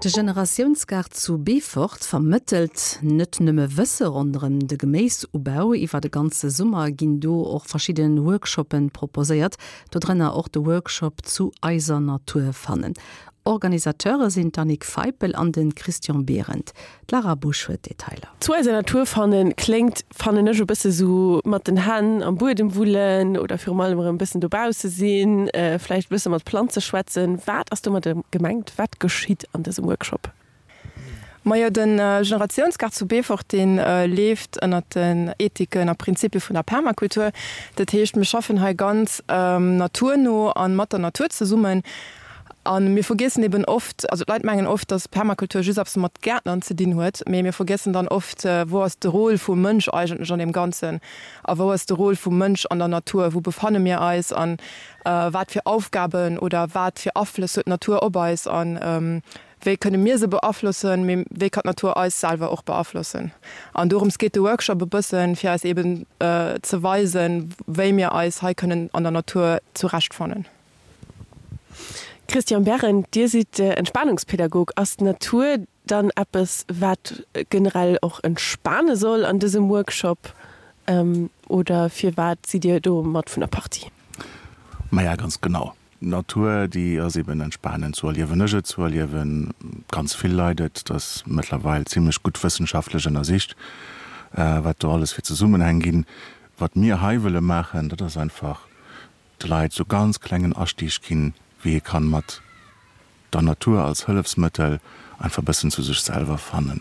De Generatiounsgaart zu Beefort vermëttelt net nëmme Wësse ronderëm de Geméisubau. Iwwer de ganze Summer ginn do och verschidde Workshoppe proposéiert, dodrënner och de Workshop Zu eiser Natur fannen. Organisateure sinn d'Annick Feipel an de Christian Behrendt. D'Lara Busch huet d'Detailer. Zu eiser Natur fannen kléngt, fannen ech, e bësse sou mat den Hänn am Buedem wullen oder virum allem erëm e bëssen dobausse sinn, vläicht e bësse mat Planze schwätzen. Wat ass domadder gemengt? Wat geschitt an dësem Workshop? Majo, de Generatiounsgaart zu Beefort, dee leeft ënnert den Ethiken a Prinzipie vun der Permakultur. Dat heescht, mir schaffen hei ganz naturno a mat der Natur zesummen. A mir vergiessen eben oft, also d'Leit mengen oft, datt Permakultur just eppes mat Gäertnern ze dinn huet, mee mir vergiessen dann oft, wou ass de Rôle vum Mënsch eigentlech an deem Ganzen a wou ass de Rôle vum Mënsch an der Natur, wou befanne mir eis a wat fir Aufgaben oder wat fir Aflëss huet d'Natur op eis a wéi kënne mir se beaflossen, mee wéi kann d'Natur eis selwer och beaflossen. An dorëms geet de Workshop e bëssen, fir eis eben ze weisen, wéi mir eis hei kënnen an der Natur zurechtfannen. Christian Berrend, Dir sidd Entspanungspädagog. Ass d'Natur dann eppes, wat generell och entspane soll an dësem Workshop oder firwat sidd Dir do mat vun der Partie? Maja, ganz genau. D'Natur, déi ass eben entspanend, sou erliewen ech et, sou erliewe ganz vill Leit et. Et ass mëttlerweil zimlech gutt wëssenschaftlech ënnersicht, wat do alles fir Zesummenhäng ginn. Wat mir hei wëlle maachen, dat ass einfach de Leit sou ganz klengen Astieg ginn, wéi ee kann mat der Natur als Hëllefsmëttel einfach bëssen zu sech selwer fannen,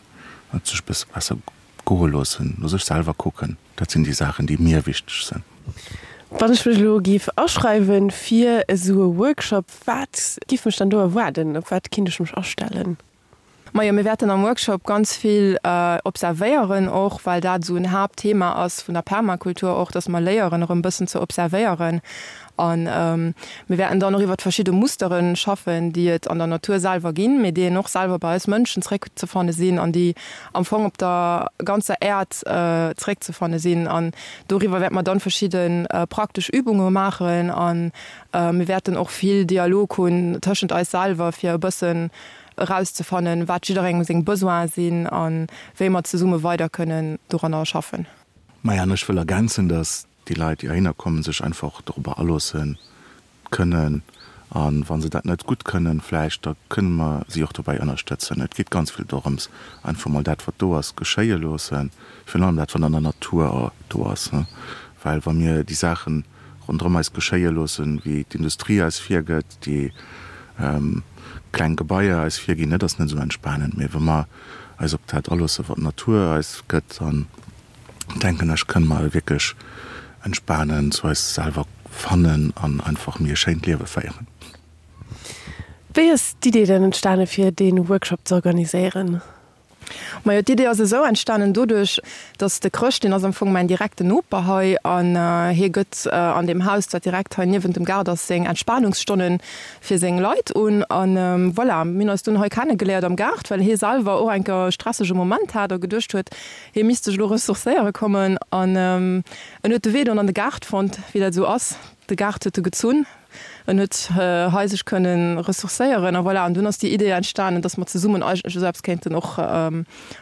et sech bësse besser goe loossen, no sech selwer kucken. Dat sinn déi Saachen, déi mir wichteg sinn. Wann ech mech elo géif aschreiwen fir esou e Workshop, wat giff mech dann do erwaarden? Op wat kinnt ech mech astellen? Majo, mir wäerten am Workshop ganz vill observéieren och, well dat esou en Haaptthema ass vun der Permakultur och, dass mer léieren erëm bëssen ze observéieren. A mir wäerten dann och iwwert verschidde Mustere schaffen, déi et an der Natur selwer ginn, mee déi een och selwer bei eis Mënschen zréckzefanne sinn an déi am Fong op der ganzer Äerd zréckzefanne sinn. An doriwwer wäerte mer dann verschidde praktesch Übunge maachen a mir wäerten och vill Dialog hunn tëschent eis selwer, fir e bëssen erauszefannen, wat jidderengem seng Besoine sinn a wéi mer zesumme weider kënnen doranner schaffen. Maja, an ech wëll ergänzen, dass déi Leit, déi heihinner kommen, sech einfach dorobber aloosse kënnen. A wa se dat net gutt kënnen, vläicht, da kënne mer si och dobäi ënnerstëtzen. Et geet ganz vill dorëms, einfach mol dat, wat do ass, geschéie loossen, virun allem dat, wat an der Natur do ass. Well wa mir déi Saachen ronderëm eis geschéie loossen, wéi d'Industrie eis virgëtt, déi kleng Gebaier eis virginn, dat ass net esou entspanend. Mee wa mer eis op dat aloossen, wat d'Natur eis gëtt, dann denken ech, kënne mer wierklech entspanen, zu eis selwer fannen an einfach méi e schéint Liewe féieren. Wéi ass d'Idee dann entstane fir dee Workshop ze organiséieren? Majo, d'Idee ass esou entstanen doduerch, dass de Chrëscht, deen ass am Fong mäin direkten Noper hei an hie gëtt an deem Haus, dat direkt hei niewent dem Gaart ass, seng Entspanungsstonne fir seng Leit un. An voilà, mir hunn eis dunn hei kennegeléiert am Gaart, well hie selwer och eng Kéier e stressege Moment hat a geduecht huet, hie misst sech elo ressourcéiere kommen. An en huet de Wee dunn an de Gaart fonnt, wéi dat esou ass, de Gaart huet e gezunn. En huet hei sech kënnen ressourcéieren a voilà. An dunn ass déi Idee entstanen, dass mer zesummen eigentlech esou eppes kéinten och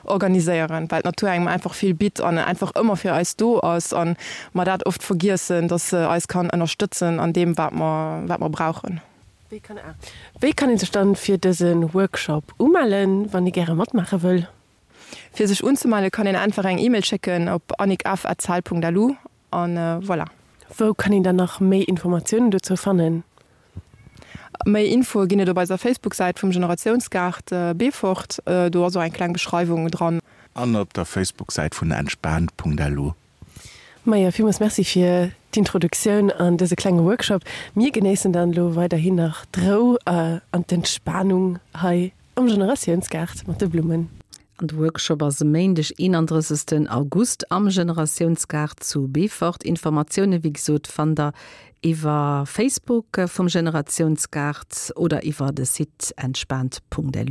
organiséieren, well d'Natur engem einfach vill bitt an einfach ëmmer fir eis do ass a mer dat oft vergiessen, dass se eis kann ënnerstëtzen an deem, wat mer, wat mer brauchen. Wéi kann ee sech dann fir dëse Workshop umellen, wann ee gäre matmaache wëll? Fir sech unzemelle kann een einfach eng E-Mail schécken op annickf@cell.lu An voilà. Wou kann een dann nach méi Informatiounen dozou fannen? Méi Infoe ginn et op eiser Facebook-Säit vum Generatiounsgaart Beefort. Do ass och eng kleng Beschreiwung dran. An op der Facebook-Säit vun entspaant.lu. Maja, villmools Merci fir d'Introduktioun an dëse klenge Workshop. Mir genéissen dann elo weiderhin nach d'Rou an d'Entspanung hei am Generatiounsgaart mat de Blummen. An de Workshop ass e Méindeg 31 August am Generatiounsgaart zu Beefort. Informatioune wéi gesot fannt der iwwer Facebook vum Generatiounsgaart oder iwwer de Site entspaant.lu.